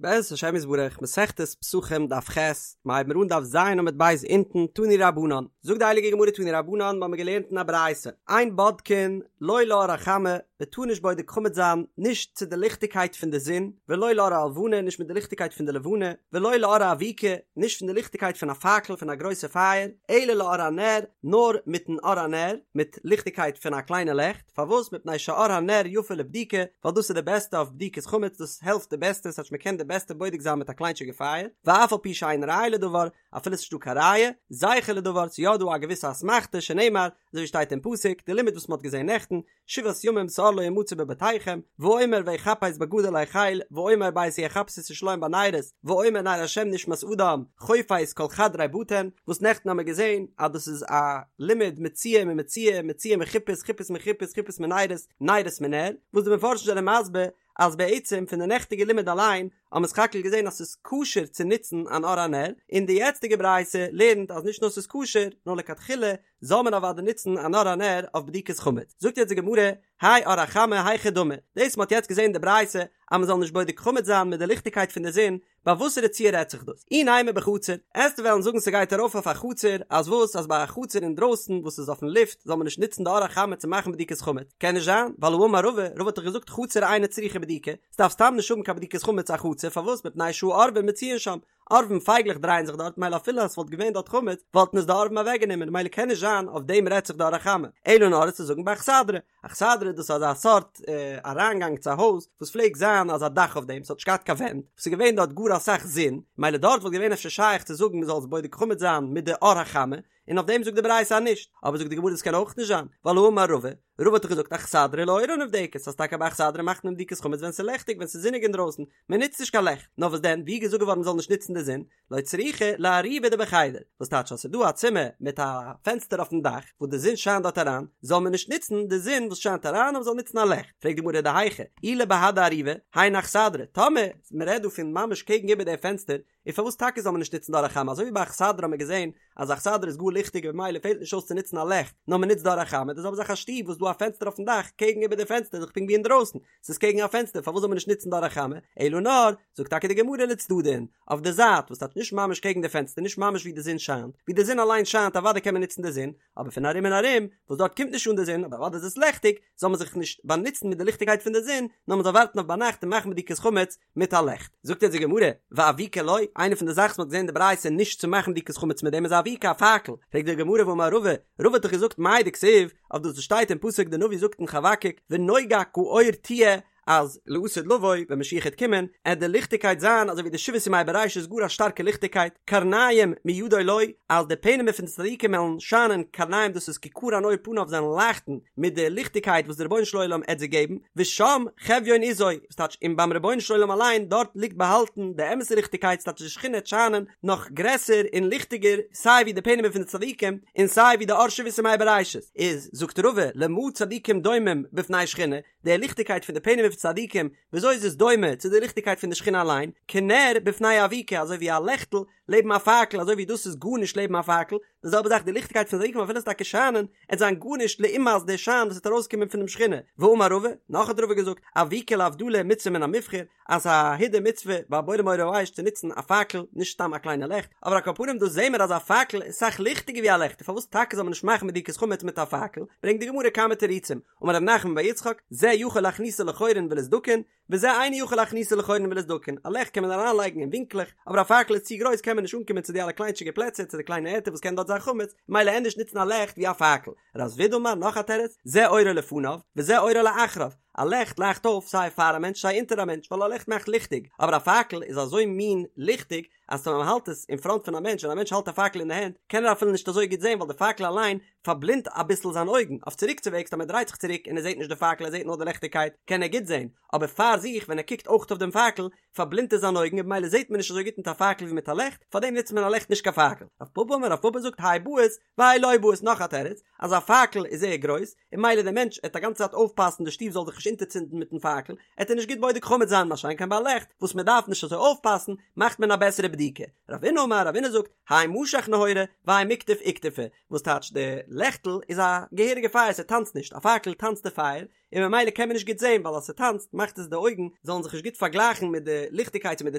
בעזרת השם יתברך, מסכת פסחים דף ח', מ'הייבן מיר אן דף ז' עמוד ב' אונטן, תנו רבנן, זאגט די הייליגע גמרא תנו רבנן, מ'האמיר געלערנט אין א ברייתא, אין בודקין לא לאור החמה, מ'טאר נישט בודק חמץ זיין, נישט צו די ליכטיגקייט פון די זון, ולא לאור הלבנה, נישט מיט די ליכטיגקייט פון די לבנה, ולא לאור האבוקה, נישט פון די ליכטיגקייט פון א פאקל פון א גרויסע פייער, אלא לאור הנר, נאר מיטן אור הנר, מיט ליכטיגקייט פון א קליינע לעכט. פארוואס? מפני שאור הנר יפה לבדיקה, ווייל דאס איז די בעסטע אויף בדיקת חמץ, דאס העלפט די בעסטע, ס'טייטש מ'קען די בעסטע בודק זיין מיט א קליינטשיגע פייער, ואף על פי שאין ראיה לדבר, אפילו ס'נישט דא קיין ראיה, זכר לדבר, ס'איז יא דא א געוויסע אסמכתא, שנאמר, אזוי ווי שטייט אין פסוק, די לימוד וואס מ'האט געזען נעכטן, שבעת ימים שאור לא ימצא בבתיכם, ואומר ויחפש בגדול החל, ואומר בעת ההיא אחפש את ירושלים בנרות, ואומר נר השם נשמת אדם, חופש כל חדרי בטן, וואס נעכטן האמיר געזען אז דאס איז א לימוד מציאה ממציאה, מציאה מחיפוש, חיפוש מחיפוש, חיפוש מנרות, נרות מנר, וואס די מפרשים זענען מסביר אז בעצם פון די נעכטיגע לימוד אליין האבן מיר סך הכל געזען אז ס'איז כשר צו נוצן אן אור הנר, און די יעצטיגע ברייתא לערנט אז נישט נאר ס'איז כשר, נאר לכתחילה זאל מען אוודאי נוצן אן אור הנר אויף בדיקת חמץ. זאגט יעצט די גמרא, האי אור החמה היכי דמי, דאס מ'האט יעצט געזען די ברייתא אז מ'זאל נישט בודק חמץ זיין מיט די ליכטיגקייט פון די זון, ביי וואסערע ציור רעדט זיך דאס? אי נימא בחצר, עסטו וועלן זאגן ס'גייט ארויף אויף א חצר, אז וואס אז ביי א חצר אינדרויסן וואס איז אויפן לופט זאל מען נישט נוצן די אור החמה צו מאכן בדיקת חמץ? קען נישט זיין, ווייל האמר רבא, רבא האט דאך געזאגט חצר אינה צריכה בדיקה, ס'דארף סתם נישט האבן קיין בדיקת חמץ א חצר, פארוואס? מפני שהעורבים מצויין שם, עורבים פייגלעך דרייען זיך דארט מילא אפילו אז ס'וואלט געווען דארט חמץ וואלטן עס די עורבים אוועקגענומען מילא קען נישט זיין אויף דעם רעדט זיך די אור החמה, אלא נאר עסטו זאגן באכסדרה, אכסדרה דאס איז אזא סארט אריינגאנג צו א הויז וואס פלעגט זיין אזא דאך אויף דעם ס'האט נישט געהאט קיין ווענט וואס איז געווען דארט גאר אסאך זון מילא דארט וואלט געווען אפשר שייך צו זאגן מ'זאל עס בודק חמץ זיין מיט די אור החמה און אויף דעם זאגט די ברייתא אז נישט אבער זאגט די גמרא דאס קען אויך נישט זיין ווייל האמר רבא רבא האט דאך געזאגט אכסדרה לאורה נבדקת אז טאקע ביי אכסדרה מאכט מען בדיקת חמץ ווען ס'איז לעכטיג ווען ס'איז זוניג אינדרויסן מען נוצט נישט קיין לעכט נאר וואס דען ווי איז געזאגט געווארן מ'זאל נישט נוצן די זון לא צריכא לאריבא דבחדר, וואס טייטש אז ס'איז דא א צימער מיט א פענסטער אויפן דאך וואס די זון שיינט דארט אריין, זאל מען נישט נוצן די זון וואס שיינט אריין נאר מ'זאל נוצן א לעכט, פרעגט די גמרא דהיכא, אי לבהדי אריבא, היינו אכסדרה, טאמער מ'רעדט דא פון ממש קעגן איבער די פענסטער, איז פארוואס טאקע זאל מען נישט נוצן די אור החמה, אזוי ווי ביי אכסדרה האט מען געזען אז אכסדרה איז גאר ליכטיג און במילא פעלט נישט אויס צו נוצן א לעכט, נאר מ'נוצט די אור החמה, די זעלבע זאך א שטוב וואס איז דא א פענסטער אויפן דאך, קעגן איבער די פענסטער איז דאך פונקט ווי אינדרויסן, ס'איז קעגן א פענסטער פארוואס זאל מען נישט נוצן די אור החמה, אלא נאר, זאגט טאקע די גמרא לצדדין, אויף די זייט, וואס טייטש נישט ממש קעגן די פענסטער נישט ממש ווי די זון שיינט, ווי די זון אליין שיינט אוודאי קען מען נוצן די זון, אבער פון ארום און ארום, וואס דארט קומט נישט אן די זון אבער אוודאי איז עס לעכטיג, זאל מען זיך נישט באנוצן מיט די ליכטיגקייט פון די זון, נאר מען זאל ווארטן אויף ביינאכט און מאכן בדיקת חמץ מיט א לעכט. זאגט יעצט די גמרא, ואבוקה לא, איינע פון די זאכן וואס מען האט געזען אין די ברייתא נישט צו מאכן בדיקת חמץ מיט דעם איז אבוקה א פאקל, פרעגט די גמרא והאמר רבא, רבא האט דאך געזאגט מאי דכתיב, אויף דאס וואס שטייט אין פסוק די נביא זאגט אין חבקוק ונוגה כאור תהיה אז לעתיד לבוא ווען משיח העט קומען עט די ליכטיגקייט זיין אזוי ווי די שבעת ימי בראשית גאר א שטארקע ליכטיגקייט קרניים מידו לו אז די פענעמער פון די צדיקים וועלן שיינען קרניים דאס איז כי קרן עור פניו זיי וועלן לייכטן מיט די ליכטיגקייט וואס די רבונו של עולם עט זיי געבן ושם חביון עזו וואס טייטש און ביים רבונו של עולם אליין דארט ליגט באהאלטן די אמת'ע ליכטיגקייט ס'טייטש די שכינה עט שיינען נאך גרעסער און ליכטיגער סיי ווי די פענעמער פון די צדיקים און סיי ווי די אור שבעת ימי בראשית איז זאגט רבא למה צדיקים דומים בפני שכינה די ליכטיגקייט פון די פענעמער פון צדיקים וויאזוי איז עס דומה צו די ליכטיגקייט פון די שכינה אליין כנר בפני אבוקה אזוי ווי א לעכטל לעבן א פאקל אזוי ווי דאס איז גארנישט לעבן א פאקל די זעלבע זאך די ליכטיגקייט פון צדיקים אפילו עס טאקע שיינען עט זיין גארנישט לעומת די שיין וואס וועט ארויסקומען פונעם שכינה ואמר רבא נאך האט רבא געזאגט אבוקה להבדלה מצוה מן המובחר אז א הידור מצוה ביי בורא מאורי האש צו נוצן א פאקל נישט סתם א קליינע לעכט אבער על כל פנים דא זעהן מיר אז א פאקל איז אסאך ליכטיגער ווי א לעכט און פארוואס טאקע זאל מען נישט מאכן בדיקת חמץ מיט א פאקל ברענגט די גמרא כמה תירוצים אמר רב נחמן בר יצחק זה יכול להכניסו לחורין ולסדקין וזה אינו יכול להכניסו לחורין ולסדקין א לעכט קען מען אריינלייגן אין ווינקלעך אבער א פאקל איז צו גרויס קען מען נישט אנקומען צו די אלע קליינטשיגע פלעצער צו די קליינע ערטער וואס קען דארט זיין חמץ מילא ענדערש נוצן א לעכט ווי א פאקל רב זביד אמר נאך א תירוץ זה אורו לפניו וזה אורו לאחריו א לעכט לייכט אויף סיי פאר א מענטש סיי אונטער א מענטש ווייל א לעכט מאכט ליכטיג, אבער א פאקל איז אזוי מין ליכטיג אז ווען מען האלט עס אין פראנט פון א מענטש ווען א מענטש האלט א פאקל אין די הענט קען ער אפילו נישט אזוי גוט זען ווייל די פאקל אליין פארבלינדט אביסל זיין אויגן, אויף צוריקצווועגס אז מען דרייט זיך צוריק און ער זעט נישט די פאקל ער זעט נאר די ליכטיגקייט קען ער גוט זען, אבער פאר זיך ווען ער קוקט אויך אויף דעם פאקל פארבלינדט עס זיין אויגן און במילא זעט מען נישט אזוי גוט מיט א פאקל ווי מיט א לעכט, פארדעם נוצט מען א לעכט נישט קיין פאקל. רב פפא אמר רב פפא זאגט האי בעית והאי לא בעית נאך א תירוץ אז א פאקל איז זייער גרויס און מילא דער מענטש עט א גאנצע צייט אויפפאסן די שטוב זאל זיך נישט אונטערצינדן מיטן פאקל עט ער נישט גוט בודק חמץ זיין מה שאין כן ביי א לעכט וואס מען דארף נישט אזוי אויפפאסן מאכט מען א בעסערע בדיקה. רבינא אמר רבינא זאגט האי משך נהורא והאי מיקטף איקטופי וואס טייטש די לעכטל איז א געהעריגע פייער ס'טאנצט נישט א פאקל טאנצט די פייער. און ממילא קען מען נישט גוט זען ווייל אז ס'טאנצט מאכט עס די אויגן זאלן זיך נישט גוט פארגלייכן מיט די ליכטיגקייט צו מיט די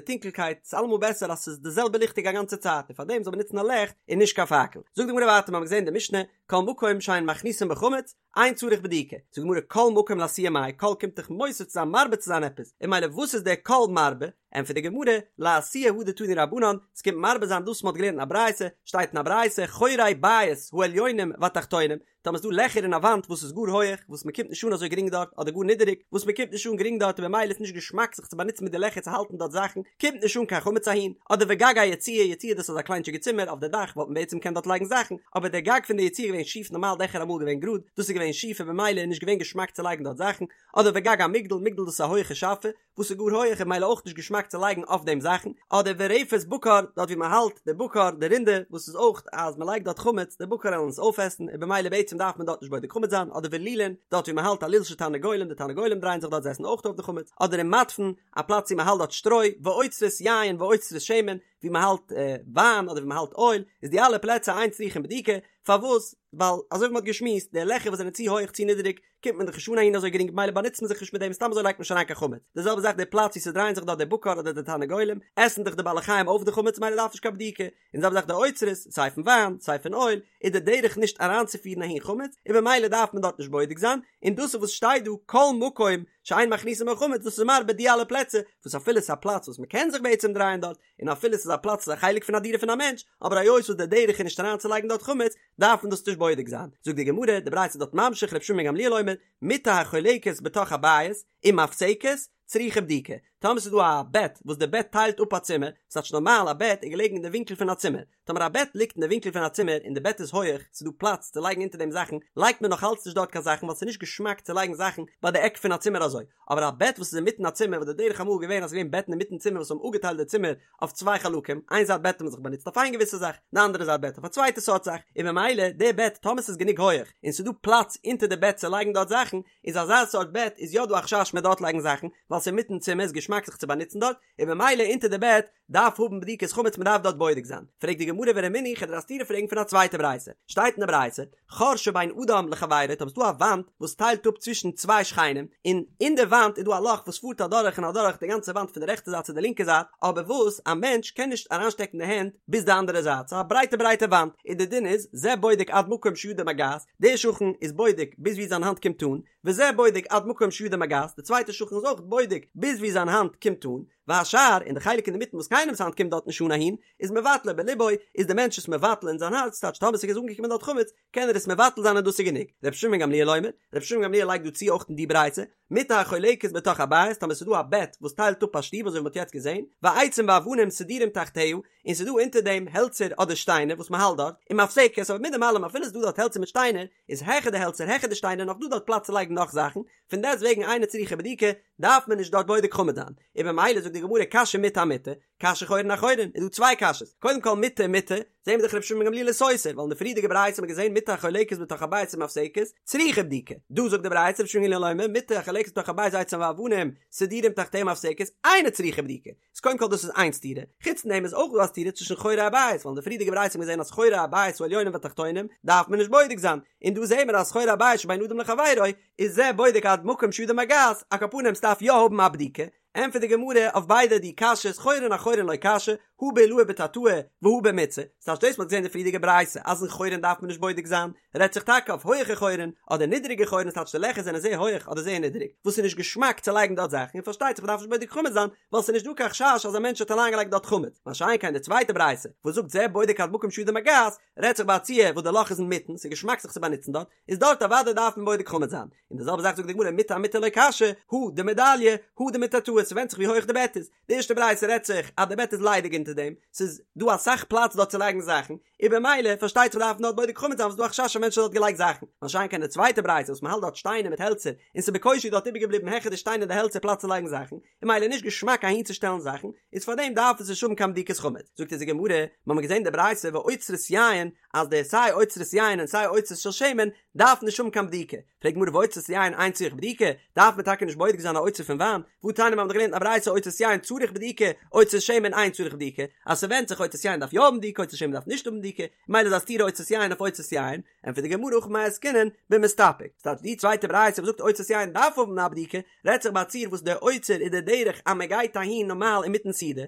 טונקלקייט, ס'איז אלעמאל בעסער אז ס'איז די זעלבע ליכטיג א גאנצע צייט און פארדעם זאל מען נוצן א לעכט און נישט קיין פאקל. זאגט די גמרא ווייטער מ'האמיר געזען די משנה כל מקום שאין מכניסין בו חמץ אין צריך בדיקה, זאגט די גמרא כל מקום לאתויי מאי, כל קומט דאך מוסיף צו זיין מרבה צו זיין עפעס, און ממילא וואס איז דער כל מרבה? ענטפערט די גמרא, לאתויי הא דתנו רבנן, ס'קומט מרבה זיין דאס מ'האט געלערנט אין א ברייתא, שטייט אין א ברייתא, חורי בית העליונים והתחתונים, טאמער ס'דא לעכער אין א וואנט וואס איז גאר הויעך, וואס מ'קומט נישט אן אזוי גרינג דארט, אדער גאר נידעריג, וואס מ'קומט נישט אן גרינג דארט און במילא איז נישט געשמאק זיך צו באנוצן מיט די לעכער צו האלטן דארט זאכן, קומט נישט אן קיין חמץ אהין, אדער וגג היציע, יציע דאס איז א קליינטשיגע צימער, אויף די דאך וואלט מען בעצם געקענט דארט לייגן זאכן, אבער דער גג פון די יציע איז געווען שיף, נארמאל דעכער אמאל געווען גראד, דאס איז געווען שיף און במילא איז נישט געווען געשמאק צו לייגן דארט זאכן, אדער וגג המגדל, מגדל דאס איז א הויעכע שאפע, וואס איז גאר הויעך און במילא אויך נישט געשמאק צו לייגן אויף דעם זאכן, אדער ורפת בקר, דארט ווי מען האלט די בקר, די רינדער, וואס איז אויך אז מען לייגט דארט חמץ, די בקר וועלן עס אויפעסן, און במילא בעצם דארף מען דארט נישט בודק חמץ זיין, אדער ולולין, דארט ווי מען האלט א לול של תרנגולים, די תרנגולים דרייען זיך דארט זיי עסן אויך אויף די חמץ, אדער ומדפן, א פלאץ ווי מען האלט דארט שטרוי, ואוצרות יין ואוצרות שמן, ווי מען האלט וויין אדער ווי מען האלט אויל, איז די אלע פלעצער אין צריכין בדיקה, פארוואס? ווייל אזוי ווי מען האט געשמועסט, די לעכער וואס זענען צו הויעך צו נידעריג, קומט מען דאך נישט אן אהין אזוי גרינג במילא באנוצט מען זיך נישט מיט דעם סתם אזוי לייגט מען נישט אריין קיין חמץ, די זעלבע זאך די פלאץ ווי ס'דרייען זיך דארט די בקר אדער די תרנגולים, עסן דאך די בעלי חיים אויף די חמץ במילא דארף נישט קיין בדיקה, און די זעלבע זאך די אוצרות, סיי פון וויין, סיי פון אויל, איז די דרך נישט אריינצופירן אהין חמץ, און במילא דארף מען דארט נישט בודק זיין, און דאס איז וואס שטייט דא כל מקום שאין מכניסין בו חמץ דאס איז מרבה די אלע פלעצער וואס אפילו ס'איז א פלאץ וואס מ'קען זיך בעצם דרייען דארט, און אפילו ס'איז א פלאץ ס'איז א חלק פון א דירה פון א מענטש, אבער היות וואס די דרך איז נישט אריינצולייגן דארט חמץ, דארף מען דאס נישט בודק זיין. זאגט די גמרא, די ברייתא איז דארט ממשיך ר' שמעון בן גמליאל אומר, מיטה החולקת בתוך הבית, ומפסקת, צריכה בדיקה. טאמער ס'איז דא א בעט וואס די בעט טיילט אפ א צימער, ס'טייטש נארמאל א בעט איז געלעגן אין די ווינקל פון א צימער, טאמער א בעט ליגט אין די ווינקל פון א צימער און די בעט איז הויעך, ס'איז דא פלאץ צו לייגן אונטער דעם זאכן, לייגט מען נאך אלץ נישט דארט קיין זאכן ווייל ס'איז נישט געשמאק צו לייגן זאכן ביי די עק פון א צימער אזוי. אבער א בעט וואס איז אינמיטן א צימער וואס די דרך אמאל איז געווען אז ס'איז געווען בעטן אינמיטן צימער וואס האבן אפגעטיילט די צימער אויף צוויי חלקים, איין זייט בעט האט מען זיך באנוצט אויף איין געוויסע זאך, די אנדערע זייט בעט אויף א צווייטע סארט זאך, און ממילא די בעט טאמער ס'איז גענוג הויעך און ס'איז דא פלאץ אונטער די בעט צו לייגן דארט זאכן, איז אזא סארט בעט איז יא דא א חשש מ'עט דארט לייגן זאכן, ווייל ס'איז אינמיטן צימער איז געשמאק זיך צו באנוצן דארט, און ממילא אונטער די בעט דארף האבן בדיקת חמץ מ'דארף דארט בודק זיין. פרעגט די גמרא ורמינהי כ'וועל דיר א סתירה פרעגן פון א צווייטע ברייתא. שטייט אין די ברייתא, חור שבין אדם לחבירו, טאמער ס'דא א וואנט וואס טיילט אפ צווישן צוויי שכנים, און אין די וואנט איז דא א לאך וואס פארט אדורך און אדורך די גאנצע וואנט פון די רעכטע זייט צו די לינקע זייט, אבער וואס א מענטש קען נישט אריינשטעקן די הענט ביז די אנדערע זייט, ס'איז א ברייטע ברייטע וואנט, און די דין איז, זה בודק עד מקום שידו מגעת, דער שכן איז בודק ביז ווי זיין האנט קומט אן, וזה בודק עד מקום שידו מגעת, די צווייטע שכן איז אויך בודק ביז ווי זיין האנט קומט אן, והשאר, און די חלק אינדערמיטן וואס קיינעמס האנט קומט דארט נישט אן אהין, איז מבטלו בלבו, איז די מענטש עס מבטל אין זיין הארץ, טייטש טאמער ס'איז אנגעקומען דארט חמץ, קען ער עס מבטל זיין און דאס איז גענוג. רבי שמעון בן גמליאל אומר, רבי שמעון בן גמליאל לייגט דא צו אויך אין די ברייתא, מיטה החולקת בתוך הבית, טאמער ס'איז דא א בעט וואס טיילט אפ א שטוב אזוי ווי מ'האט יעצט געזען, ועצים ואבנים סדורים תחתיה, און ס'איז דא אונטער דעם העלצער אדער שטיינער וואס מ'האלט דארט, ומפסקת, אבער מיט דעם אלעם אפילו ס'איז דא דארט העלצער מיט שטיינער, איז העכער די העלצער העכער די שטיינער נאך דא דארט פלאץ צו לייגן נאך זאכן, פון דעסט וועגן אינה צריכה בדיקה, דארף מען נישט דארט בודק חמץ זיין, און במילא זאגט די גמרא קשיא מיטה אמיטה, קשיא חורין אחורין, איז דא צוויי קשיות, קודם כל מיטה אמיטה, זעהן מיר דאך רבי שמעון בן גמליאל איז סותר, ווייל אין די פריערדיגע ברייתא האט מען געזעהן מיטה החולקת בתוך הבית ומפסקת, צריכה בדיקה, דא זאגט די ברייתא רבי שמעון בן גמליאל אומר מיטה החולקת בתוך הבית ועצים ואבנים סדורים תחתיה ומפסקת, אינה צריכה בדיקה, איז קודם כל דאס איז איין סתירה, חוץ פון דעם איז אויך דא א סתירה צווישן חורי הבית, ווייל אין די פריערדיגע ברייתא האט מען געזען אז חורי הבית העליונים והתחתונים דארף מען נישט בודק זיין, און דא זעהן מיר אז חורי הבית שבין אדם לחבירו איז זה בודק עד מקום שידו מגעת, על כל פנים ס'דארף יא האבן א בדיקה, ענטפערט די גמרא אויף ביידע די קשיות חורין אחורין לא קשיא, הא בעילאי בתתאי והא במיצעי, ס'טייטש דאס מ'האט געזען אין די פריערדיגע ברייתא אז אין חורין דארף מען נישט בודק זיין, רעדט זיך טאקע אויף הויעכע חורין אדער נידעריגע חורין ס'טייטש די לעכער זענען זייער הויעך אדער זייער נידעריג וואס איז נישט געשמאק צו לייגן דארט זאכן און פארשטייט זיך מ'דארף נישט בודק חמץ זיין ווייל ס'איז נישט דא קיין חשש אז א מענטש האט אריינגעלייגט דארט חמץ מה שאין כן די צווייטע ברייתא וואס זאגט זה בודק עד מקום שידו מגעת רעדט זיך ביי א ציור וואס די לאך איז אינמיטן ס'איז געשמאק זיך צו באנוצן דארט איז דארט אוודאי דארף מען בודק חמץ זיין און די זעלבע זאך זאגט די גמרא מיטה אמיטה לא קשיא הא דמידליא הא דמיתתאי ס'ווענדט זיך ווי הויעך די בעט איז די ערשטע ברייתא רעדט זיך אז די בעט איז ליידיג אונטער דעם, ס'איז דא אסאך פלאץ דארט צו לייגן זאכן, און במילא פארשטייט זיך דארף מען דארט בודק חמץ זיין ווייל ס'איז דא א חשש א מענטש האט דארט געלייגט זאכן, מה שאין כן די צווייטע ברייתא וואס מ'האלט דארט שטיינער מיט העלצער און ס'איז בקושי דארט איבערגעבליבן העכער די שטיינער און די העלצער פלאץ צו לייגן זאכן, און במילא נישט געשמאק אהינצושטעלן זאכן, איז פארדעם דארף עס נישט האבן קיין בדיקת חמץ. זאגט אונז די גמרא, מ'האמיר געזען די ברייתא ואוצרות יין, אז די סיי אוצרות יין און סיי אוצרות של שמן דארף נישט האבן קיין בדיקה, פרעגט גמרא ואוצרות יין אין צריך בדיקה, דארף מען טאקע נישט בודק זיין א אוצר פון וויין, והתניא מיר האבן דאך געלערנט אין א ברייתא אוצרות יין צריך בדיקה, אוצרות שמן אין צריך בדיקה. בדיקה, אז ס'ווענדט זיך אוצרות יין דארף יא האבן בדיקה אוצרות שמן דארף נישט האבן בדיקה, מילא איז א סתירה אוצרות יין אויף אוצרות יין, ענטפערט די גמרא הכא במאי עסקינן במסתפק, ס'טייטש די צווייטע ברייתא וואס זאגט אוצרות יין דארף האבן א בדיקה, רעדט זיך ביי א ציור וואס דער אוצר איז די דרך אז מען גייט אהין נארמאל אינמיטן סעודה,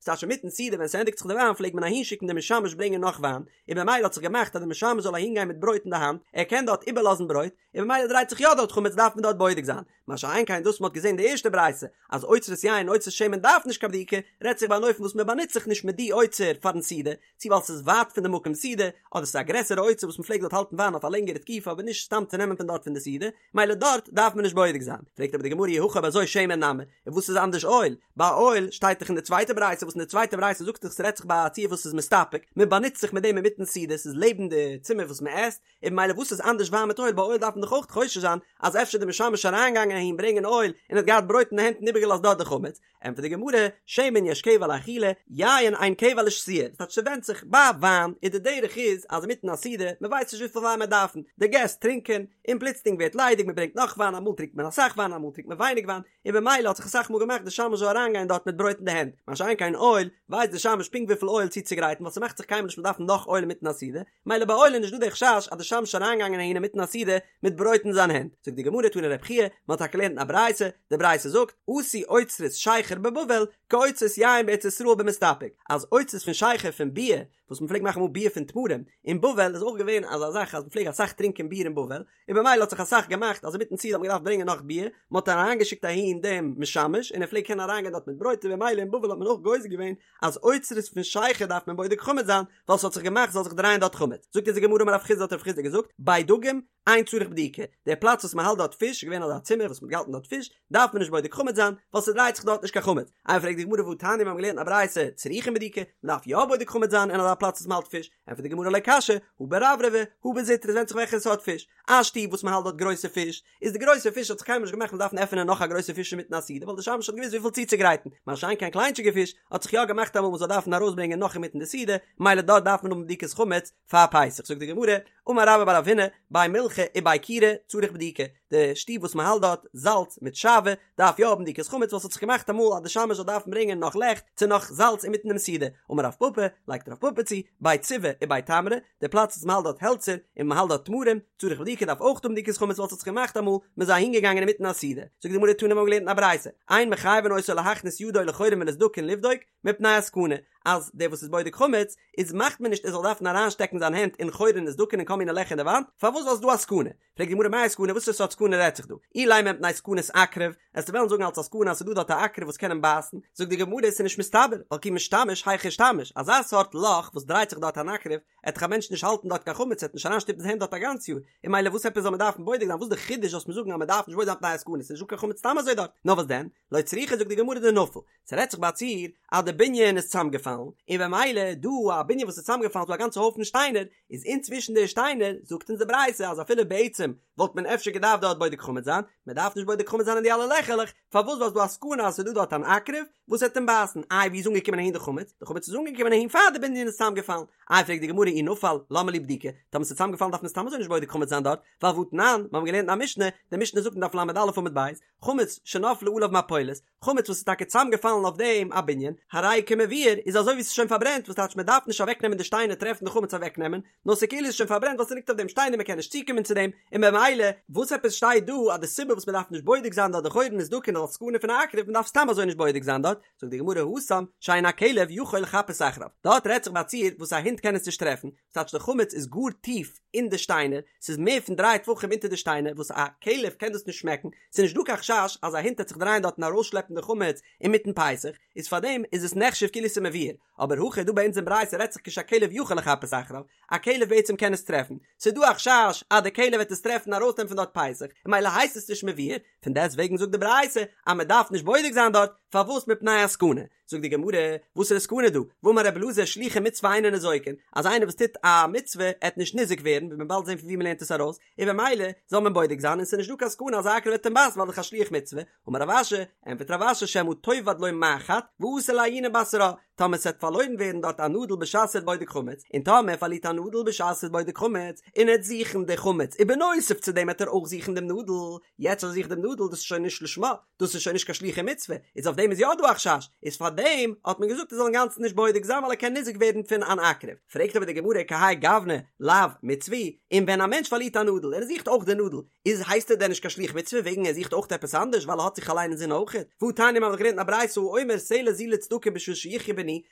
ס'טייטש אינמיטן סעודה ווען ס'ענדיגט זיך די וויין פלעגט מען אהין שיקן די משמש ברענגען נאך וויין, און במילא האט זיך געמאכט אז די משמש זאל אהין גיין מיט ברויט אין די האנט, ער קען דארט איבערלאזן ברויט, און במילא דרייט זיך יא דארט חמץ דארף מען דארט בודק זיין, מה שאין כן דאס מ'האט געזען די ערשטע ברייתא אז אוצרות יין און אוצרות שמן דארף נישט קיין בדיקה, רעדט זיך ביי אן אופן וואס מ'באנוצט זיך נישט מיט די אוצר פארן סעודה, צו ווייל ס'איז ווייט פון די מקום סעודה, אדער ס'איז א גרעסערע אוצר וואס מ'פלעגט דארט האלטן וויין אויף א לענגערע תקופה אבער נישט סתם צו נעמען פון דארט פון די סעודה, מילא דארט דארף מען נישט בודק זיין. פרעגט אבער די גמרא אי הכי אויב אזוי שמן נמי, און וואס איז אנדערש אויל? ביי אויל שטייט דאך אין די צווייטע ברייתא וואס אין די צווייטע ברייתא זאגט זיך ס'רעדט זיך ביי א ציור וואס איז מסתפק, מ'באנוצט זיך מיט דעם אינמיטן סעודה, ס'איז לעבן די צימער וואס מ'עסט, און במילא וואס איז אנדערש וויין מיט אויל? ביי אויל דארף מען דאך אויך חושש זיין אז אפשר די משמש אריינגעגאנגען אהין ברענגען אויל און האט געהאט ברויט אין די הענט און איבערגעלאזט דארט די חמץ, ענטפערט די גמרא, שמן יש קבע לאכילה, יין אין קבע לשתיה, דאס טייטש ס'ווענדט זיך, ביי וויין איז די דרך איז אז אינמיטן א סעודה, מ'ווייסט נישט וויפיל וויין מען דארפן, די געסט טרינקען, און פלוצלינג ווערט ליידיג מ'ברענגט נאך וויין, אמאל טרינקט מען אסאך וויין אמאל טרינקט מען ווייניג וויין, און במילא האט זיך אסאך מאל געמאכט די שמש זאל אריינגיין דארט מיט ברויט אין די הענט, מה שאין כן אויל, ווייסט די שמש פונקט וויפיל אויל צוצוגרייטן ווייל ס'מאכט זיך קיינמאל נישט מ'דארף נאך אויל אינמיטן א סעודה, מילא ביי אויל איז נישט דא די חשש אז די שמש איז אריינגעגאנגען אהין אינמיטן א סעודה מיט ברויט אין זיין הענט, זאגט די גמרא תני רבי חייא, מען האט טאקע געלערנט אין א ברייתא, די ברייתא זאגט, עשו אוצרות שכר בבבל כאוצרות יין בארץ ישראל במסתפק, אז אוצרות פון שכר פון ביר, וואס מען פלעגט מאכן אמאל ביר פון תמרים, אין בבל איז אויך געווען אזא זאך אז מען פלעג אסאך טרינקען ביר אין בבל, און במילא האט זיך אסאך געמאכט אז אינמיטן סעודה האט מען געדארפט ברענגען נאך ביר, מען האט אריינגעשיקט אהין דעם משמש און ער פלעגט קענען אריינגיין דארט מיט ברויט און במילא אין בבל האט מען אויך גוזר געווען אז אוצרות פון שכר דארף מען בודק חמץ זיין ווייל ס'האט זיך געמאכט ס'זאל זיך דרייען דארט חמץ. זאגט אונז די גמרא אמר רב חסדא האט רב חסדא געזאגט, בי דגים, אין צריך בדיקה, דער פלאץ וואס מען האלט דארט פיש, געווען אזא צימער וואס מען האט געהאלטן דארט פיש, דארף מען נישט בודק חמץ זיין, ווייל ס'דרייט זיך דארט נישט קיין חמץ. איי פרעגט די גמרא והתניא מיר האבן געלערנט א ברייתא צריכין בדיקה, מען דארף יא בודק חמץ זיין אין אזא פלאץ וואס מען האלט פיש, ענטפערט די גמרא לא קשיא, הא ברברבי, הא בזוטרי, עס ווענדט זיך וועלכע סארט פיש, א שטוב וואס מען האלט דארט גרויסע פיש, איז די גרויסע פיש האט זיך קיינמאל נישט געמאכט מען דארפן עפענען נאך א גרויסע פיש אינמיטן א סעודה ווייל די שמש האט געוואוסט וויפיל צוצוגרייטן, מה שאין כן קליינטשיגע פיש האט זיך יא געמאכט אמאל מען זאל דארפן ארויסברענגען נאך אינמיטן די סעודה, מילא דארט דארף מען האבן בדיקת חמץ פאר פסח, זאגט די גמרא, אמר רבה בר רב הונא, בי מילחא ובי כירא צריך בדיקה, די שטוב וואס מען האלט דארט זאלץ מיט שעוה דארף יא האבן בדיקת חמץ ווייל ס'האט זיך געמאכט אמאל אז די שמש זאל דארפן ברענגען נאך לעכט צו נאך זאלץ אינמיטן דעם סעודה, אמר רב פפא, לייגט רב פפא צו, בי ציבי ובי תמרי, די פלאץ וואס מ'האלט דארט העלצער און מ'האלט דארט תמרים, צריך בדיקה דארף אויך האבן בדיקת חמץ ווייל ס'האט זיך געמאכט אמאל מ'איז אהין געגאנגען אינמיטן א סעודה, זאגט די גמרא תנא מ'האט געלערנט אין א ברייתא, אין מחייבין אותו להכניס ידו לחורין ולסדקין לבדוק מפני הסכנה, אז דער וואס איז בודק חמץ איז מאכט מען נישט ער זאל דארפן אריינשטעקן זיין הענט אין חורין און סדקין און כל מיני לעכער אין די וואנט, פארוואס ווייל ס'איז דא א סכנה? פרעגט די גמרא מאי סכנה וואס פאר סארט סכנה רעדט זיך דא? אילימא מפני סכנת עקרב, עסטו וועלן זאגן אלס א סכנה אז ס'איז דא דארט א עקרב וואס קען אים בייסן, זאגט די גמרא ס'איז נישט מסתבר, ווייל כי משתמש היכי אישתמיש, אזא סארט לאך וואס דרייט זיך דארט אן עקרב, עט דאך א מענטש נישט האלטן דארט קיין חמץ, עט נישט אריינשטופן זיין הענט דארט א גאנץ יאר, און מילא וואס עפעס זאל מען דארפן בודק זיין, וואס די חידוש זאלסט מיר זאגן אז מען דארף נישט בודק זיין מפני הסכנה, ס'איז נישט דא קיין חמץ סתם אזוי דארט, נאר וואס דען? לא צריכא זאגט די גמרא דנפל, ס'רעדט זיך ביי א ציור אז די בנין איז צוזאמגעפאלן, און במילא דא א בנין וואס איז צוזאמגעפאלן ס'דא א גאנצע הויפן שטיינער, איז אינצווישן די שטיינער, זאגט אונז די ברייתא אז אפילו בעצם וואלט מען אפשר געדארפט דארט בודק חמץ זיין, מען דארף נישט בודק חמץ זיין אין די אלע לעכערלעך, פארוואס ווייל ס'דא א סכנה אז ס'איז דא דארט אן עקרב וואס וועט אים בייסן, איי ווי איז אנגעקומען אהין די חמץ? די חמץ איז אנגעקומען אהין פאר די בנין איז צוזאמגעפאלן, איי פרעגט די גמרא אי נפל למה לי בדיקה, טאמער ס'איז צוזאמגעפאלן דארף מען סתם אזוי נישט בודק חמץ זיין דארט, ווייל והתנן, מיר האבן געלערנט אין א משנה, די משנה זאגט אין דף ל"א עמוד ב', חמץ שנפלה עליו מפולת, חמץ וואס איז טאקע צוזאמגעפאלן אויף דעם א בנין, הרי כמבוער, איז אזוי ווי ס'איז שוין פארברענט, וואס טייטש מ'דארף נישט אוועקנעמען די שטיינער טרעפן די חמץ אוועקנעמען, נאר ס'כאילו איז שוין פארברענט ווייל ס'ליגט אויף דעם שטיינער מ'קען נישט צוקומען צו דעם, און במילא, וואס עפעס שטייט דא אז די סיבה וואס מ'דארף נישט בודק זיין דארט די חורין וסדקין איז אלס סכנה פון א עקרב, מ'דארף סתם אזוי נישט בודק זיין דארט, זאגט די גמרא התם, שאין הכלב יכול לחפש אחריו, דארט רעדט זיך ביי א ציור וואס א הונט קען עס נישט טרעפן, ס'טייטש די חמץ איז גאר טיף אין די שטיינער, ס'איז מער פון דריי טפחים אונטער די שטיינער וואס א כלב קען דאס נישט שמעקן, ס'איז נישט דא קיין חשש אז א הונט העט זיך דרייען דארט און ארויסשלעפן די חמץ אינמיטן פסח, איז פארדעם איז עס נחשב כאילו ס'איז מבוער, אבער הכא דא ביי אונז אין ברייתא רעדט זיך כשהכלב יכול לחפש אחריו, א כלב בעצם קען עס טרעפן, ס'איז דא א חשש אז די כלב וועט עס טרעפן און ארויסנעמען פון דארט פסח, און מילא הייסט עס נישט מבוער, פון דעסט וועגן זאגט די ברייתא אז מען דארף נישט בודק זיין דארט, פארוואס מפני הסכנה? זאגט די גמרא, וואסערע סכנה דא? והאמר רבי אלעזר שלוחי מצוה אינן ניזוקין, אז איינער וואס טוט א מצוה עט נישט ניזוק ווערן, ווי מען באלד זען פון ווי מען לערנט עס ארויס, און במילא זאל מען בודק זיין און ס'איז נישט דא קיין סכנה אז א עקרב וועט אים בייסן ווייל דאך א שליח מצוה, אמר רב אשי, ענטפערט רב אשי שמא תאבד לו מחט ואתי לעיוני בתרה, טאמער ס'עט פארלוירן ווערן דארט א נאדל בשעת ער איז בודק חמץ, און טאמער ער פארלירט א נאדל בשעת ער איז בודק חמץ, און ער עט זוכן די חמץ, ובנוסף צו דעם עט ער אויך זוכן דעם נאדל, יעצט אז ער זוכט דעם נאדל דאס איז שוין נישט לשמה, דאס איז שוין נישט קיין שלוחי מצוה, איז אויף דעם איז יא דא א חשש, איז פאר דעם. פארדעם האט מען געזאגט ער זאל אינגאנצן נישט בודק זיין ווייל ער קען ניזוק ווערן פון אן עקרב. פרעגט אבער די גמרא כהאי גוונא לאו מצוה היא, און ווען א מענטש פארלירט א נאדל און ער זוכט אויך די נאדל, איז הייסט ער דען נישט קיין שליח מצוה וועגן ער זוכט אויך עפעס אנדערש ווייל ער האט זיך אליין אינזין אויכעט? והא תניא מ'האט דאך געלערנט אין א ברייתא האומר סלע זו לצדקה בשביל שיחיה בני,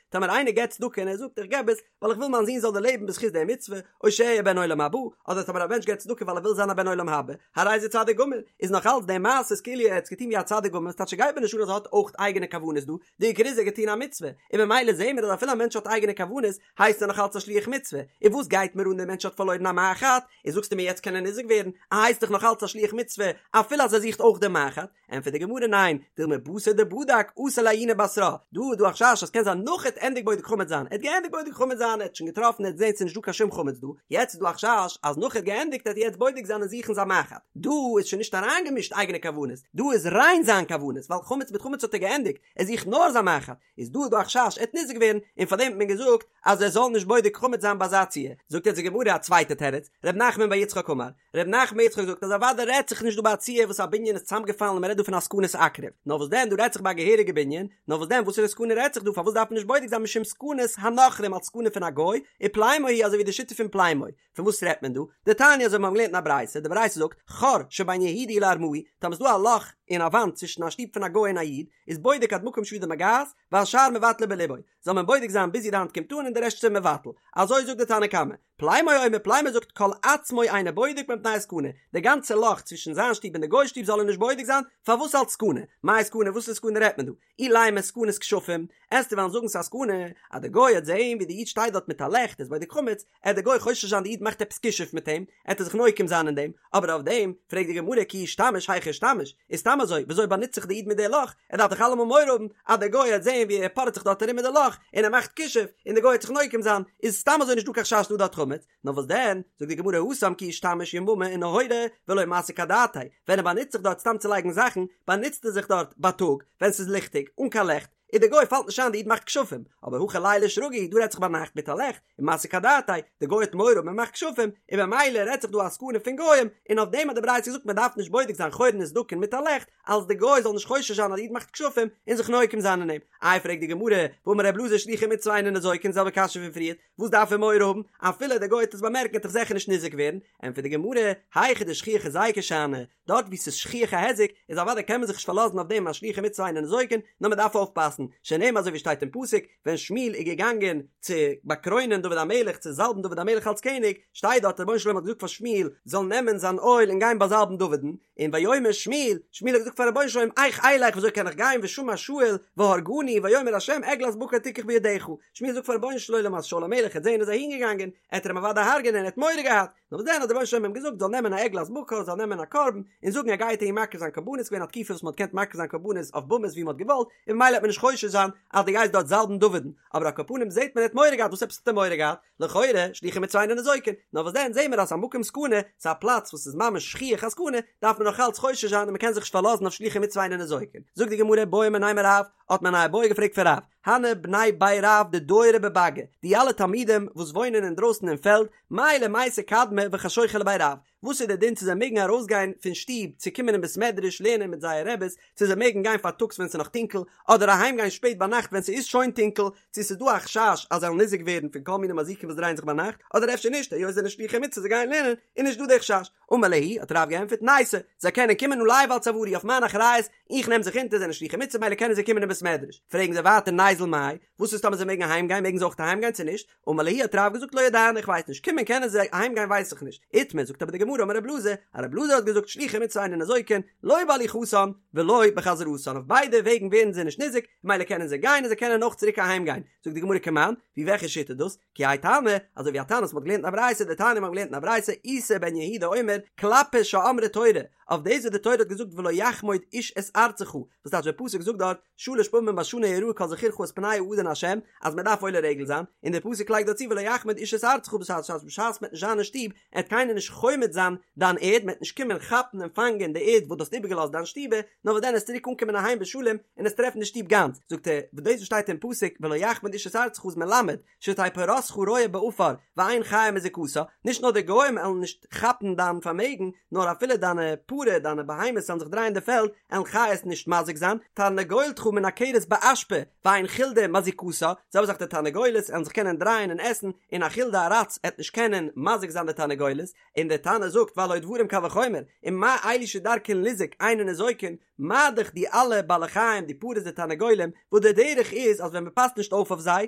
טאמער איינער געבט צדקה און ער זאגט איך געב עס ווייל איך וויל מיין זון זאל דערלעבן בזכות די מצוה, או שאהיה בן עולם הבא, אדער טאמער א מענטש געבט צדקה ווייל ער וויל זיין א בן עולם הבא, הרי זה צדיק גמור, איז נאך אלץ די מעשה איז כאילו ער האט עס געטון ווי א צדיק גמור, ס'טייטש ס'גייט מיר נישט אן אז ער האט אויך אייגענע כוונות דא, די עיקר איז ער האט געטון א מצוה, און ממילא זעהן מיר אז אפילו א מענטש האט אייגענע כוונות, הייסט ער נאך אלץ א שליח מצוה, און וואס גייט מיר אן דער מענטש האט פארלוירן א מחט, און זאגסטו מיר יעצט קען ער ניזוק ווערן, ער הייסט דאך נאך אלץ א שליח מצוה אפילו אז ער זוכט אויך דעם מחט, ענטפערט די גמרא ניין, דילמא בתר דבדק אתי לעיוני בתרה, דא איז דא א חשש אז קען זיין נאך ער האט ענדיגט בודק חמץ זיין, ער האט געענדיגט בודק חמץ זיין, ער האט שוין געטראפן ער האט געזען ס'איז נישט דא קיין שום חמץ דא, יעצט איז דא א חשש אז נאך ער האט געענדיגט וועט ער יעצט בודק זיין און זוכן זיין מחט, דא איז שוין נישט אריינגעמישט אייגענע כוונות, דא איז ריין זיין כוונות, ווייל חמץ מיט חמץ האט ער געענדיגט, ער זוכט נאר זיין מחט, איז דא דא א חשש ער וועט ניזוק ווערן, און פארדעם האט מען געזאגט אז ער זאל נישט בודק חמץ זיין ביי אזא ציור, זאגט יעצט די גמרא א צווייטע תירוץ, ר' נחמן בר יצחק אמר, ר' נחמן בר יצחק זאגט אז אוודאי רעדט זיך נישט דא ביי א ציור וואס א בנין איז צוזאמגעפאלן און מען רעדט דא פון א סכנת עקרב, נאר וואס דען דא רעדט זיך ביי א געהעריגע בנין, נאר וואס דען וואסערע סכנה רעדט זיך דא פארוואס דארף מען נישט בודק זיין משום סכנת הנכרים אלס סכנה פון א גוי, ופלימו היא אזוי ווי די שיטה פון פלימו, פון וואס רעדט מען דא? דתניא אזוי ווי מיר האבן געלערנט אין א ברייתא, די ברייתא זאגט, חור שבין יהודי לארמאי, טאמער איז דא א לאך אין א וואנט צווישן א שטוב פון א גוי און א איד, איז בודק עד מקום שידו מגעת, והשאר מבטלו בלבו, זאל מען בודק זיין ביז ווי די האנט קומט אן און די רעשט איז ער מבטל. אזוי זאגט די תנא קמא. פלימו אומר, פלימו זאגט כל עצמו אינו בודק מפני הסכנה, די גאנצע לאך צווישן זיין שטוב און די גוי'ס שטוב זאל ער נישט בודק זיין, פארוואס אלס סכנה? מאי סכנה? וואסערע סכנה רעדט מען דא? אילימא סכנת כשפים, עסטו וועלן זאגן ס'איז א סכנה אז די גוי העט זעהן ווי די איד שטייט דארט מיט א לעכט איז בודק חמץ, עט די גוי חושש זיין די איד מאכט עפעס כישוף מיט אים, עט ער זיך נוקם זיין אין דעם, אבער אויף דעם פרעגט די גמרא כי אישתמיש היכי אישתמיש, איז סתם אזוי וויאזוי באנוצט זיך די איד מיט די לאך, ער דארף דאך אלעמאל מורא האבן אז די גוי העט זעהן ווי ער פארעט זיך דארט ארום מיט די לאך און ער מאכט כישוף און די גוי העט זיך נוקם זיין, איז סתם אזוי נישט דא קיין חשש דא דארט חמץ, נאר וואס דען, זאגט די גמרא התם כי אישתמיש יממא ונהורא ולא מסיק אדעתיה, ווען ער באנוצט זיך דארט סתם צו לייגן זאכן, באנוצט ער זיך דארט בייטאג, ווען ס'איז ליכטיג, אן קיין לעכט, און די גוי פאלט נישט איין די איד מאכט כשפים, אבער הכא ליליא שרגא הוא, דא רעדט זיך ביינאכט מיט א לעכט, ומסיק אדעתיה, די גוי האט מורא מען מאכט כשפים, און במילא רעדט זיך דא א סכנה פון גוים, און אויף דעם האט די ברייתא געזאגט מען דארף נישט בודק זיין חורין וסדקין מיט א לעכט, אלס די גוי זאל נישט חושש זיין אז די איד מאכט כשפים, און זיך נוקם זיין אין אים. איי פרעגט די גמרא, והאמר ר' אלעזר שלוחי מצוה אינן ניזוקין, זעלבע קשיא פון פריערט, וואס דארף ער מורא האבן? אפילו דער גוי וועט עס באמערקן וועט דאך זיכער נישט ניזוק ווערן, ענטפערט די גמרא, היכא דשכיח היזיקא שאני, דארט וואו ס'איז שכיח א היזק, איז אוודאי קען מען זיך נישט פארלאזן אויף דעם אז שלוחי מצוה אינן ניזוקין, נאר מען דארף אויפפאסן, שנאמר אזוי ווי שטייט אין פסוק, ווען שמואל איז געגאנגען צו באקרוינען דוד המלך, צו זאלבן דוד המלך אלס קעניג, שטייט דארט רבונו של עולם האט געזאגט פאר שמואל זאל נעמען זיין אויל און גיין באזאלבן דוד'ן, און ויאמר שמואל, שמואל האט געזאגט פאר רבונו של עולם, איך אלך וויאזוי קען איך גיין ושמע שאול והרגני, ויאמר ה' עגלת בקר תקח בידך, שמואל זאגט פאר רבונו של עולם אז שאול המלך העט זען ער איז אהין געגאנגען, עט ער אים אוודאי הרג'ענען, ער האט מורא געהאט, נאר וואס דען האט דער רבונו של עולם אים געזאגט זאל נעמען א עגלת בקר, זאל נעמען א קרבן, און זאגן ער גייט אהין מקריב זיין קרבנות, ס'געווען א תקופה וואס מען האט געקענט מקריב זיין קרבנות אויף במות ווי מען האט געוואלט, און ממילא העט מען נישט חושש זיין אז דו גייסט דארט זאלבן דוד'ן, אבער על כל פנים זעט מען ער האט מורא געהאט, וואס עפעס האט ער מורא געהאט? לכאורה, שלוחי מצוה אינן ניזוקין, נאר וואס דען זעהן מיר אז ס'איז א מקום סכנה, ס'איז א פלאץ וואס איז ממש שכיח א סכנה, דארף מען נאך אלץ חושש זיין און מ'קען זיך נישט פארלאזן אויף שלוחי מצוה אינן ניזוקין. זאגט די גמרא בעו מיניה מרב, האט מען א איבעיא געפרעגט פון רב, הני בני בי רב דדיירי בבאגא, די אלע תלמידים וואס וואוינען אינדרויסן אין פעלד, מהו למיתי קדמי וחשוכא לבי רב, וואס איז די דין צו זיי מעגן ארויסגיין פון שטוב צו קומען אין בית מדרש לערנען מיט זייער רעבעס, צו זיי מעגן גיין פארטאגס ווען ס'איז נאך טונקל, אדער אהיים גיין שפעט ביינאכט ווען ס'איז שוין טונקל, צו ס'איז דא א חשש אז זיי וועלן ניזוק ווערן פון כל מיני מזיקים וואס דרייען זיך ביינאכט, אדער אפשר נישט, היות זיי זענען שלוחי מצוה זיי גייען לערנען, איז נישט דא די חשש. אמר להו, האט רב געענטפערט, ניתו, זיי קענען קומען עלי ועל צוארי אויף מיין אחריות, איך נעם זיך אונטער, זיי זענען שלוחי מצוה ממילא קענען זיי קומען אין בית מדרש. פרעגן זיי ווייטער ניזיל מאי, וואס איז טאמער זיי מעגן אהיים גיין, מעגן זיי אויך אהיים גיין צו נישט? אמר להו האט רב געזאגט לא ידענא איך ווייס נישט קומען קענען זיי אהיים גיין ווייס איך נישט איתמר זאגט אבער די גמרא אמר רב אלעזר אז רב אלעזר האט געזאגט שלוחי מצוה אינן ניזוקין לא בהליכתן ולא בחזרתן אויף ביידע וועגן ווערן זיי נישט ניזוק ממילא קענען זיי גיין און זיי קענען אויך צוריק אהיים גיין זאגט די גמרא כמאן ווי וועלכע שיטה דאס כי האי תנא אזוי ווי א תנא וואס מ'האט געלערנט אין א ברייתא דתניא מ'האט געלערנט אין א ברייתא איסי בן יהודה אומר כלפי שאמרה תורה אויף דאס וואס די תורה האט געזאגט ולא יחמוד איש את ארצך וואס טייטש דער פסוק זאגט דארט שלש פעמים בשנה יראה כל זכורך את פני האדון השם, אז מען דארף עולה רגל זיין, און דער פסוק לייגט דא צו ולא יחמוד איש את ארצך בשעת אז בשעת מען וועט נישט זיין אין שטוב, עט קיינער נישט חומד זיין דיין ערד, מען וועט נישט קומען כאפן און פאנגען די ערד וואס דו האסט איבערגעלאזט דיין שטובע, נאר וואס דען עסט צוריק אנקומען אהיים בשלום און עסט טרעפן די שטוב גאנץ, זאגט ער, וואס דאס וואס שטייט אין פסוק ולא יחמוד איש את ארצך איז מלמד, שתהא פרתך רועה בעפר ואין חיה מזיקתה, נישט נאר די גוים עלן נישט כאפן דיין פארמעגן, נאר אפילו דיינע פרה, דיינע בהמות עלן זיך דרייען אין די פעלד, עלן חיות נישט מזיק זיין, תרנגולתך מנקרת באשפה, ואין. חולדה מזיקתה, זעלבע זאך די תרנגולת עלן זיך קענען דרייען און עסן, און א חולדה א ראץ עט נישט קענען מזיק זיין די תרנגולת, און דער תנא זאגט והלא דברים קל וחומר, ומה אלו שדרכן ליזוק אינן ניזוקין, מה דאך די אלע בעלי חיים די פרות די תרנגולים, וואס די דרך איז אז ווען מען פאסט נישט אויף אויף זיי,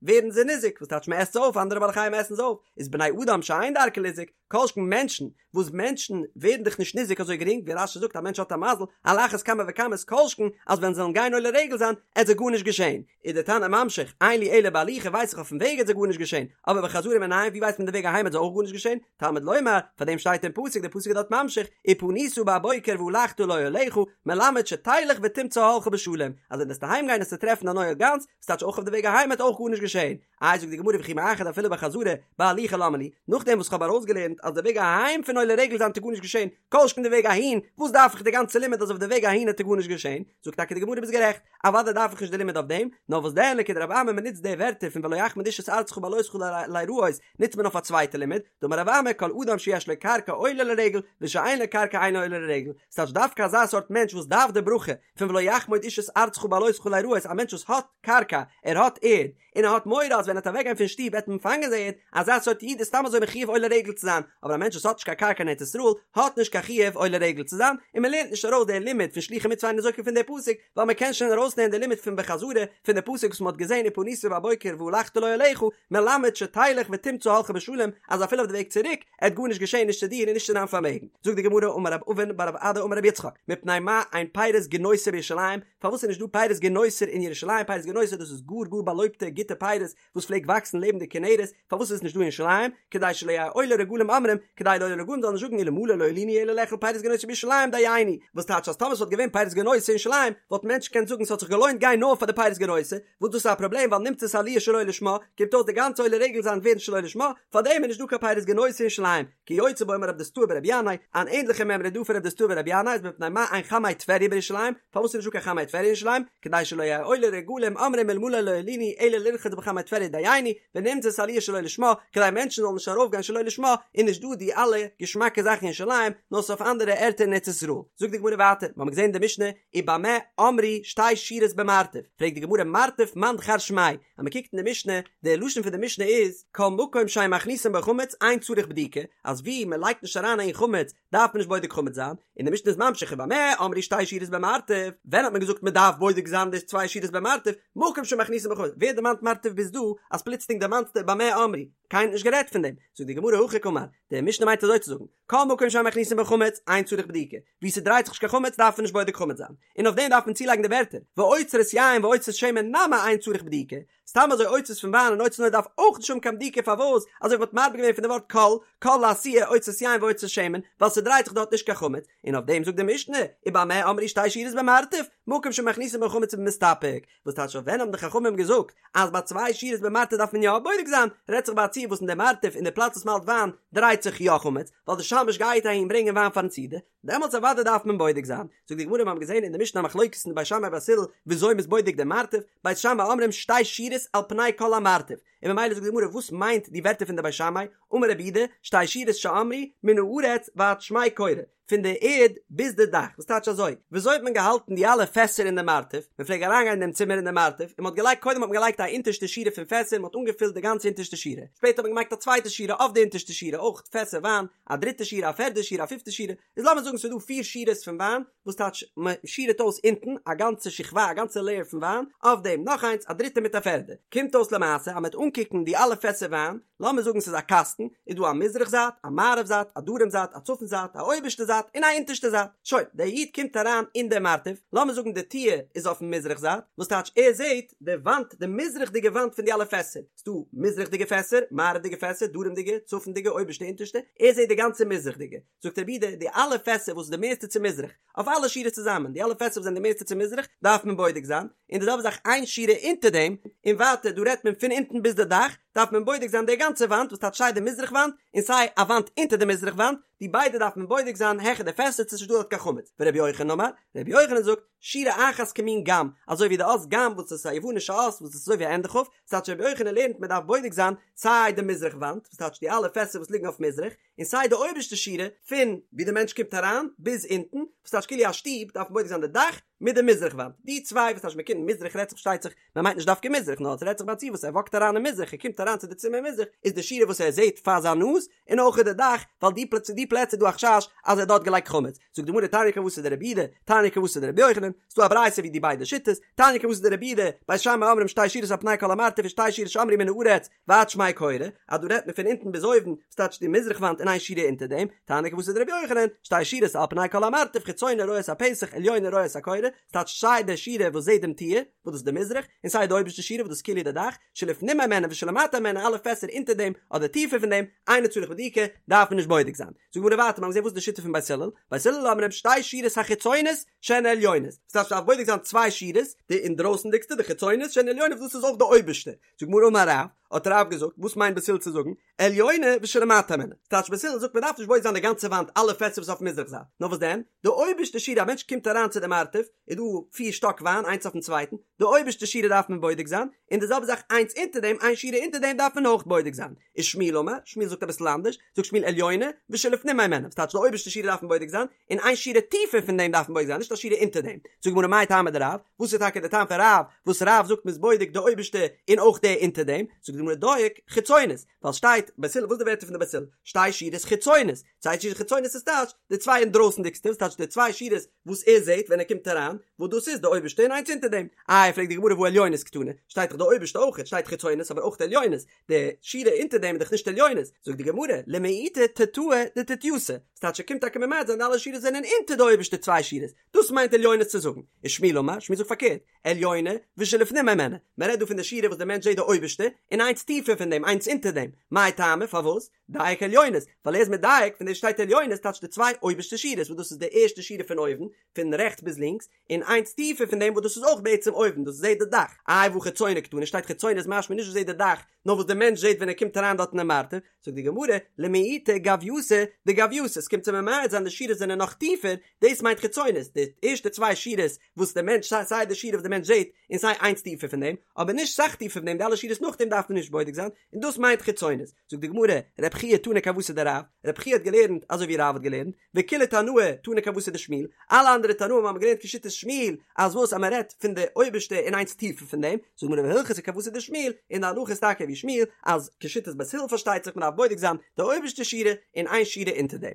ווערן זיי ניזוק, וואס טייטש מען עסט זיי אויף, אנדערע בעלי חיים עסן זיי אויף, איז בני אדם שאין דרכן ליזוק, כל שכן מענטשן, וואס מענטשן ווערן דאך נישט ניזוק אזוי גרינג, ווי רש"י זאגט א מענטש האט א מזל, על אחת כמה וכמה איז כל שכן אז ווען זיי זאלן גיין עולה רגל זיין, עט זיי גארנישט געשען. איז דער תנא ממשיך, אין לי אלא בהליכה ווייס איך אויפן וועג עט זיי גארנישט געשען, אבער בחזרה מנין ווי ווייסט מען די וועג אהיים עט זיי אויך גארנישט געשען, תלמוד לומר, פאר דעם שטייט אין פסוק, דער פסוק איז דארט ממשיך, ופנית בבוקר והלכת לאהליך, מלמד שתלך ותמצא אהלך בשלום, אז ווען וועסטו אהיים גיין עסטו טרעפן דיין אוהל גאנץ, וואס טייטש אויך אויף די וועג אהיים עט אויך גארנישט געשען. איי זאגט די גמרא וכי מאחר דאפילו בחזרה בהליכה למה לי, נאכדעם וואס כ'האב ארויסגעלערנט אז די וועג אהיים פון עולה רגל זיין עט גארנישט געשען, כל שכן די וועג אהין, וואס דארף איך די גאנצע לימוד אז אויף די וועג אהין עט גארנישט געשען, זאגט טאקע די גמרא ביסט גערעכט, אוודאי דארף איך נישט די לימוד אויף דעם, נאר וואס דען לכדרב אמי מ'נוצט די ווערטער פון ולא יחמוד איש את ארצך בעלותך ליראות נוצט מען אויף א צווייטע לימוד, דאמר רב אמי כל אדם שיש לו קרקע עולה לרגל ושאין לו קרקע אינו עולה לרגל, ס'טייטש דווקא אזא סארט מענטש וואס דארף די ברכה פון ולא יחמוד איש את ארצך בעלותך ליראות א מענטש וואס האט קרקע, ער האט ערד, און ער האט מורא אז ווען ער וועט אוועקגיין פון שטוב וועט מען פאנגען זיין ערד, אזא סארט איד איז סתם אזוי מחויב עולה רגל צו זיין, אבער א מענטש וואס האט נישט קיין קרקע אין ארץ ישראל האט נישט קיין חיוב עולה רגל צו זיין, און מען לערנט נישט ארויס די לימוד פון שלוחי מצוה אין ניזוקין פון די פסוק, ווייל מען קען שוין ארויסלערנען די לימוד פון בחזרה פון די פסוק וואס מען האט געזען ופנית בבוקר והלכת לאהליך, מלמד שתלך ותמצא אהלך בשלום, אז אפילו אויף די וועג צוריק עט גארנישט געשען נישט צו דיר און נישט צו דיין פארמעגן. זאגט די גמרא אמר רב אבין בר רב אדא אמר רבי יצחק, מפני מה אין פירות גינוסר בירושלים, פארוואס איז נישט דא פירות גינוסר אין ירושלים, פירות גינוסר דאס איז גאר גאר באלויבטע גוטע פירות וואס פלעגט וואקסן לעבן די כנרת, פארוואס איז עס נישט דא אין ירושלים, כדי שלא יהו עולי רגלים אומרים, כדי די עולי רגלים זאלן נישט זאגן אלמלא לא עלינו אלא לאכול פירות גינוסר בירושלים דיינו, וואס טייטש אז טאמער ס'וואלט געווען פירות גינוסר אין ירושלים וואלטן מענטשן געקענט זאגן ס'האט זיך געלוינט גיין נאר פאר די פירות גינוסר, וואס דאס איז א פראבלעם ווייל נמצאת עליה שלא לשמה, קומט אויס די גאנצע עולה רגל זיין ווערן שלא לשמה, פארדעם איז נישט דא קיין פירות גינוסר אין ירושלים, כיוצא בו אמר רב דוסתאי ברבי ינאי, אן ענדליכע מימרא איז דא פון רב דוסתאי ברבי ינאי איז מפני מה אין חמי טבריה בירושלים, פארוואס איז נישט דא קיין חמי טבריה אין ירושלים, כדי שלא יהו עולי רגלים אומרים אלמלא לא עלינו אלא לרחוץ בחמי טבריה דיינו, ונמצאת עליה שלא לשמה, כדי מענטשן זאלן נישט ארויפגיין שלא לשמה, איז נישט דא די אלע געשמאקע זאכן אין ירושלים, נאר ס'איז אויף אנדערע ערטער אין ארץ ישראל. זאגט די גמרא ווייטער, מ'האמיר געזען אין די משנה, ובמה אמרו שתי שורות במרתף, פרעגט די גמרא מרתף מאן דכר שמיה, אז מען קוקט אין די משנה, די לשון פון די משנה איז, כל מקום שאין מכניסין בו חמץ אין צריך בדיקה, אז ווי מען לייגט נישט אריין אהין חמץ דארף מען נישט בודק חמץ זיין, און די משנה איז ממשיך ובמה אמרו שתי שורות במרתף, ווען האט מען געזאגט מען דארף בודק זיין די צוויי שורות במרתף, מקום שמכניסין בו חמץ, ווער דערמאנט מרתף ביז דא, אז פלוצלינג דערמאנסטו במה אמרו, קיינער האט נישט גערעדט פון דעם, זאגט די גמרא הכי קאמר, די משנה מיינט אזוי צו זאגן, כל מקום שאין מכניסין בו חמץ, אין צריך בדיקה, וואו ס'דרייט זיך נישט קיין חמץ דארף מען נישט בודק חמץ זיין, און אויף דעם דארף מען צולייגן די ווערטער, ואוצרות יין ואוצרות שמן נמי אין צריך בדיקה, סתם אזוי אוצרות פון וויין און אוצרות אויל דארף אויך נישט האבן קיין בדיקה פארוואס אזוי ווי מ'האט מרבה געווען פון די ווארט כל, כל לאתויי אוצרות יין ואוצרות שמן, ווייל ס'דרייט זיך דארט נישט קיין חמץ, און אויף דעם זאגט די משנה, ובמה אמרו שתי שורות במרתף, מקום שמכניסין בו חמץ ובמסתפק, וואס טייטש אויף ווען האבן די חכמים געזאגט אז ביי צוויי שורות במרתף דארף מען יא בודק זיין, רעדט זיך ביי א ציור וואס אין די מרתף אין די פלאץ וואס מ'האלט וויין דרייט זיך יא חמץ, ווייל די שמש גייט אהין ברענגען וויין פארן סעודה, דעמאלטס אוודאי דארף מען בודק זיין. זאגט די גמרא מיר האבן געזען אין די משנה א מחלוקת אין די בית שמאי בית הלל וויאזוי מ'איז בודק די מרתף, בית שמאי אומרים שתי שורות על פני כל המרתף, און ממילא זאגט די גמרא וואס מיינט די ווערטער פון די בית שמאי, אמר רב יהודה, שתי שורות שאמרו מן הארץ ועד שמי קורה, פון די ערד ביז די דאך, וואס טייטש אזוי? וויאזוי האט מען געהאלטן די אלע פעסער אין די מרתף? מען פלעג אריינגיין אין דעם צימער אין די מרתף, און מען האט געלייגט קודם האט מען געלייגט א אונטערשטע שורה פון פעסער, מען האט אנגעפילט די גאנצע אונטערשטע שורה, שפעטער האט מען געמאכט א צווייטע שורה אויף די אונטערשטע שורה אויך פעסער וויין, א דריטע שורה, א פערדע שורה, א פיפטע שורה, איז לאמיר זאגן ס'איז דא פיר שורות פון וויין, וואס טייטש מען שורה'ט אויס אונטן א גאנצע שכבה, א גאנצע לעיער פון וויין, אויף דעם נאך איינס, א דריטע מיט א פערדע. קומט אויס למעשה אז מען וועט אנקוקן די אלע פעסער וויין, לאמיר זאגן ס'איז א קאסטן, איז דא א מזרח זייט, א מערב זייט, א דרום זייט, א צפון זייט, א אויבערשטע זייט, און א אונטערשטע זייט. שוין, דער איד קומט אריין אין דער מרתף, לאמיר זאגן די טיר איז אויפן מזרח זייט, וואס טייטש ער זעט די וואנט, די מזרח'דיגע וואנט פון די אלע פעסער, ס'דא מזרח'דיגע פעסער, מערב'דיגע פעסער, דרומ'דיגע, צפונ'דיגע, אויבערשטע, אונטערשטע, ער זעט די גאנצע מזרח'דיגע. זאגט רבי יהודה, די אלע פעסער וואס איז די מערסטע צו מזרח, אויף אלע שורות צוזאמען, די אלע פעסער וואס זענען די מערסטע צו מזרח, דארף מען בודק זיין, און די זעלבע זאך איין שורה אונטער דעם, און ווייטער, דא רעדט מען פון אונטן ביז די דאך, דארף מען בודק זיין די גאנצע וואנט, וואס טייטש סיי די מזרח וואנט, און סיי א וואנט אונטער די מזרח וואנט, די ביידע דארף מען בודק זיין העכער די פעסער צו ס'איז נישט דא דארט קיין חמץ. ורבי יוחנן אמר, רבי יוחנן זאגט, שורה אחת כמין ג"ם, אזוי ווי די אות ג"ם וואס איז א יוונישע אות וואס איז אזוי ווי א ענדע כ', ס'טייטש רבי יוחנן לערנט מען דארף בודק זיין סיי די מזרח וואנט, וואס טייטש די אלע פעסער וואס ליגן אויף מזרח, און סיי די אויבערשטע שורה פון ווי די מענטש קומט אריין ביז אונטן, וואס טייטש כאילו א שטוב דארף מען בודק זיין די דאך מיט די מזרח וואנט, די צוויי וואס טייטש מען קומט מזרח רעדט זיך פארשטייט זיך מען מיינט נישט דווקא מזרח נאר עס רעדט זיך ביי א ציור וואס ער וואקט אריין אין מזרח ער קומט אריין צו די צימער מזרח איז די שורה וואס ער זעט פאר זיין נאז און אויך די דאך ווייל די פלעצער די פלעצער איז דא א חשש אז ער האט דארט געלייגט חמץ זאגט די גמרא תניא כוותיה דרבי יהודה תניא כוותיה דרבי יוחנן ס'דא א ברייתא ווי די ביידע שיטות תניא כוותיה דרבי יהודה בית שמאי אומרים שתי שורות על פני כל המרתף ושתי שורות שאמרו מן הארץ ועד שמי קורה, אז דא רעדט מען פון אונטן ביז אויבן, וואס טייטש די מזרח וואנט און איין שורה אונטער דעם, תניא כוותיה דרבי יוחנן, שתי שורות על פני כל המרתף חיצונה רואה את הפתח עליונה רואה את הקורה, ס'טייטש סיי די שורה וואס זעט דעם טיר, וואס דאס איז די מזרח, און סיי די אויבערשטע שורה וואס דאס איז כאילו די דאך, שלפנים הימנה ושלמטה הימנה אלע פעסער אונטער דעם אדער טיפער פון דעם, אינו צריך בדיקה, דארף מען נישט בודק זיין. זאגט די גמרא ווייטער, מ'האט געזען וואס איז די שיטה פון בית הלל, בית הלל אומרים שתי שורות החיצונות שהן עליונות, ס'טייטש מ'דארף בודק זיין צוויי שורות, די אינדרויסנדיגסטע די חיצונות שהן עליונות וואס דאס איז אויך די אויבערשטע, זאגט די גמרא אמר רב, האט רב געזאגט, וואס מיינט בית הלל צו זאגן, עליונה ושלמטה הימנה, ס'טייטש בית הלל זאגט מען דארף נישט בודק זיין די גאנצע וואנט אלע פעסער וואס אויף מזרח זייט, נאר וואס דען, די אויבערשטע שורה א מענטש קומט אריין צו די מרתף, איז דא פיר שטאק וויין איינס אויפן צווייטן, די אויבערשטע שורה דארף מען בודק זיין, און די זעלבע זאך איינס אונטער דעם, איין שורה אונטער דעם דארף מען אויך בודק זיין. ושמואל אמר, שמואל זאגט אביסל אנדערש, זאגט שמואל עליונה ושלפנים הימנה, ס'טייטש די אויבערשטע שורה דארף מען בודק זיין, און איין שורה טיפער פון דעם דארף מען בודק זיין, נישט א שורה אונטער דעם. זאגט די גמרא מאי טעמא דרב, וואס איז טאקע די טעם פון רב, וואס רב זאגט מ'איז בודק די אויבערשטע און אויך די אונטער דעם, זאגט די גמרא דייק, חיצונות, ווייל שטייט בית הלל, וואס איז די ווערטער פון די בית הלל, שתי שורות חיצונות, צוויי שורות חיצונות איז טייטש די צוויי אינדרויסנדיגסטע, וואס טייטש די צוויי שורות וואס ער זעט ווען ער קומט אריין, וואס דאס איז די אויבערשטע און איינס אונטער דעם. איי פרעגט די גמרא והא עליונות קתני, שטייט דאך די אויבערשטע אויך, שטייט חיצונות אבער אויך עליונות, די שורה אונטער דעם איז דאך נישט עליונות, זאגט די גמרא, למעוטי תתאי דתתייתא, ס'טייטש ער קומט טאקע ממעט זיין די אלע שורות זענען אונטער די אויבערשטע צוויי שורות, דאס מיינט עליונות צו זאגן, ושמואל אמר, שמואל זאגט פארקערט, עליונה ושלפנים הימנה, מען רעדט דא פון די שורה וואס די מענטש זעט די אויבערשטע, און איינס טיפער פון דעם, איינס אונטער דעם, מאי טעמא, פארוואס? דייק עליונות, ווייל ער איז מדייק פון דעם שטייט עליונות טייטש די צוויי אויבערשטע שורות וואס דאס איז די ערשטע שורה פון אויבן, פון רעכטס ביז לינקס, און איינס טיפער פון דעם וואס דאס איז אויך בעצם אויבן, דאס זעט די דאך. איי והא חיצונה קתני שטייט חיצונה איז משמע נישט וואס זעט די דאך, נאר וואס די מענטש זעט ווען ער קומט אריין דארט אינעם מרתף, זאגט די גמרא, למעוטי גווייתא דגווייתא, עס קומט צו ממעט זיין די שורות זענען נאך טיפער, דאס מיינט חיצונות, די ערשטע צוויי שורות וואס די מענטש סיי די שורה וואס די מענטש זעט און סיי איינס טיפער פון דעם, אבער נישט סאך טיפער פון דעם, די אלע שורות נאכדעם דארף מען נישט בודק זיין, און דאס מיינט חיצונות. זאגט די גמרא, רב חייא תנא כוותיה דרב, רב חייא האט געלערנט אזוי ווי רב האט געלערנט, וכולהו תנאי תנו כוותיה דשמואל, אלע אנדערע תנאים האבן געלערנט כשיטת שמואל, אז וואס אז מען רעדט פון די אויבערשטע און איינס טיפער פון דעם, זאגט די גמרא והלכתא כוותיה דשמואל, און די הלכה איז טאקע ווי שמואל, אז כשיטת בית הלל פארשטייט זיך מען דארף בודק זיין די אויבערשטע שורה און איין שורה אונטער דעם.